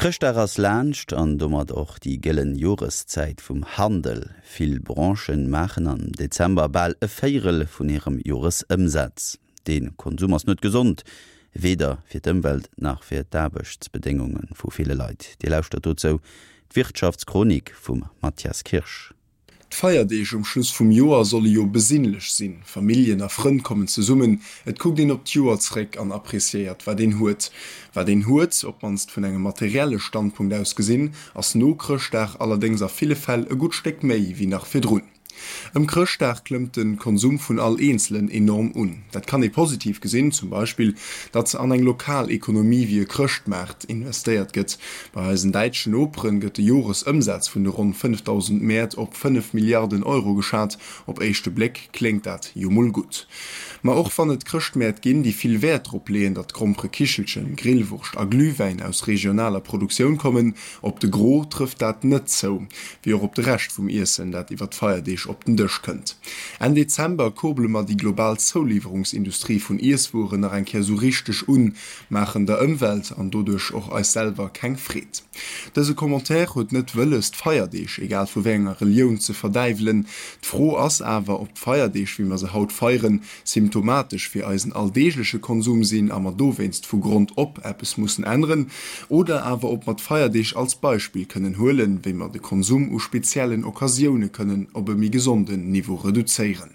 Chrëschtdag ass laanscht an domat och déi gëllen Joreszäit vum Handel. Vill Branchen maachen am Dezember bal e Véierel vun hirem Joresëmsaz. Dee Konsum ass net gesond, weder fir d'Ëmwelt nach fir d'Aarbechtsbedéngunge vu ville Leit. Dir lauschtert dozou d'Wirtschaftschronik vum Mathias Kirsch. D'Feierdeeg um Schluss vum Joer solle jo besinnlech sinn. Familljen a Frënn kommen zesummen, et kuckt een op d'Joer zréck an appreciéiert wat een huet. Wat een huet, op d'mannst vun engem materielle Standpunkt aus gesinn, ass no Chrëschtdag allerdéngs a ville Fäll e gutt Stéck méi wéi nach virdrun. Ëm Chrëschtdag klëmmt de Konsum vun all Eenzelen enorm un. Dat kann ee positiv gesinn, zum Beispill, datt an eng lokal Ekonomie wéi e Chrëschtmaart investéiert gëtt. Bei eisen däitschen Noperen gëtt de Joresëmsaz vun de ronn 5.000 Mäert op 5 Milliarden Euro geschat. Op éischte Bléck kléngt dat jo mol gutt. Ma och wann et Chrëschtmäert ginn, déi vill Wäert drop leeën, datt Gromperekichelchen, Grillwurscht a Glühwäin aus regionaler Produktioun kommen, Op de Gros trëfft dat net zou, wéi och op de Rescht vum Iessen, dat iwwer d'Feierdeeg op den Dësch kënnt. Enn Dezember kurbele mer déi global Zouliwwerungsindustrie vun Iesswueren nach eng Kéier sou richteg un, maachen der Ëmwelt an doduerch och eis selwer keng Freed. Dëse Commentaire huet net wëlles, d'Feierdeeg, egal vu wéi enger Relioun, ze verdäiwelen. D'Fro ass awer, ob d'Feierdeeg, wéi mer se haut feieren, symptomatesch fir eisen alldeegleche Konsum sinn a mer dowéinst vu Grond op eppes mussen änneren, oder awer ob mer d'Feierdeeg als Beispill kënnen huelen, wéi mer de Konsum u speziellen Occasioune kënnen op e méi gesonden Niveau reduzéieren.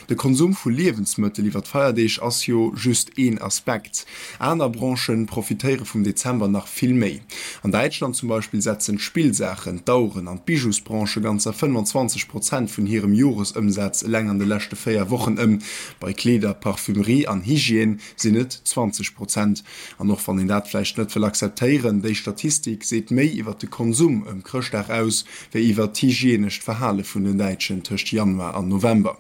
De Konsum vu Liewensmëttel iwwer d'Feierdeeg ass jo just een Aspekt. Aner Branchë profitéiere vum Dezember nach vill méi. An Däitschland zum Beispill setzen d'Spillsaachen, d'Aueren an d'Bijousbranche ganzer 25 Prozent vun hirem Joresëmsaz eleng an de leschte 4 Wochen ëm. Bei Kleeder, Parfümerie an Hygiène sinn et 20 Prozent. An och wann een dat vläicht net wëll akzeptéieren, déi Statistik seet méi iwwer de Konsum ëm Chrëschtdag aus, wéi iwwer d'hygienescht Verhale vun den Däitschen tëscht Januar an November.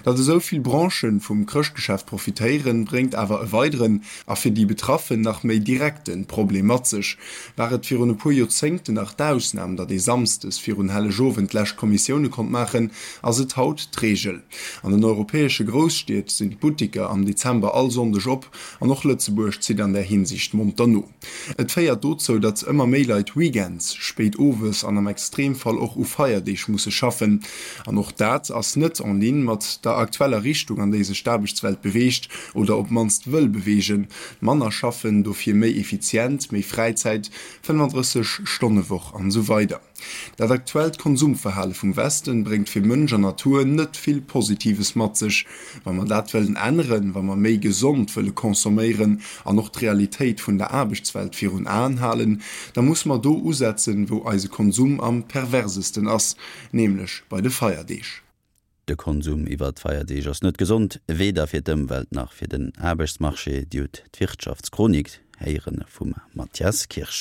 Datt esou vill Branchen vum Chrëschtgeschäft profitéieren, bréngt awer e weideren, a fir déi Betraffen nach méi direkten, Problem mat sech. War et virun e puer Joerzéngten nach d'Ausnam, datt ee samsdes virun Hellegowend d'lescht Kommissioune konnt maachen, ass et haut d'Reegel. An den europäesche Grousstied sinn d'Buttiker am Dezember all Sonndeg op, an och Lëtzebuerg zitt an där Hinsicht monter no. Et féiert dozou, datt ëmmer méi Leit weekends, spéit owes an am Extremfall och u Feierdeeg musse schaffen. An och dat ass net en ligne mat der aktueller Richtung, an déi sech d'Aarbechtswelt beweegt oder op d'mannst wëll beweegen, manner schaffen, dofir méi effizient, méi Fräizäit, 35 Stonne Woch an esou weider. Dat aktuellt Konsumverhale vum Westen bréngt fir Mënsch an Natur net vill Positives mat sech. Wa mer dat wëllen änneren, wa mer méi gesond wëlle consomméieren an och d'Realitéit vun der Aarbechtswelt virun Aen halen, da musse mer do usetzen, wou eise Konsum am perversesten ass, nämlech bei de Feierdeeg. De Konsum iwwer d'Feierdeeg ass net gesond, weder fir d'Ëmwelt nach fir den Aarbechtsmarché. Dir hutt d'Wirtschaftschronik héiere vum Mathias Kirsch.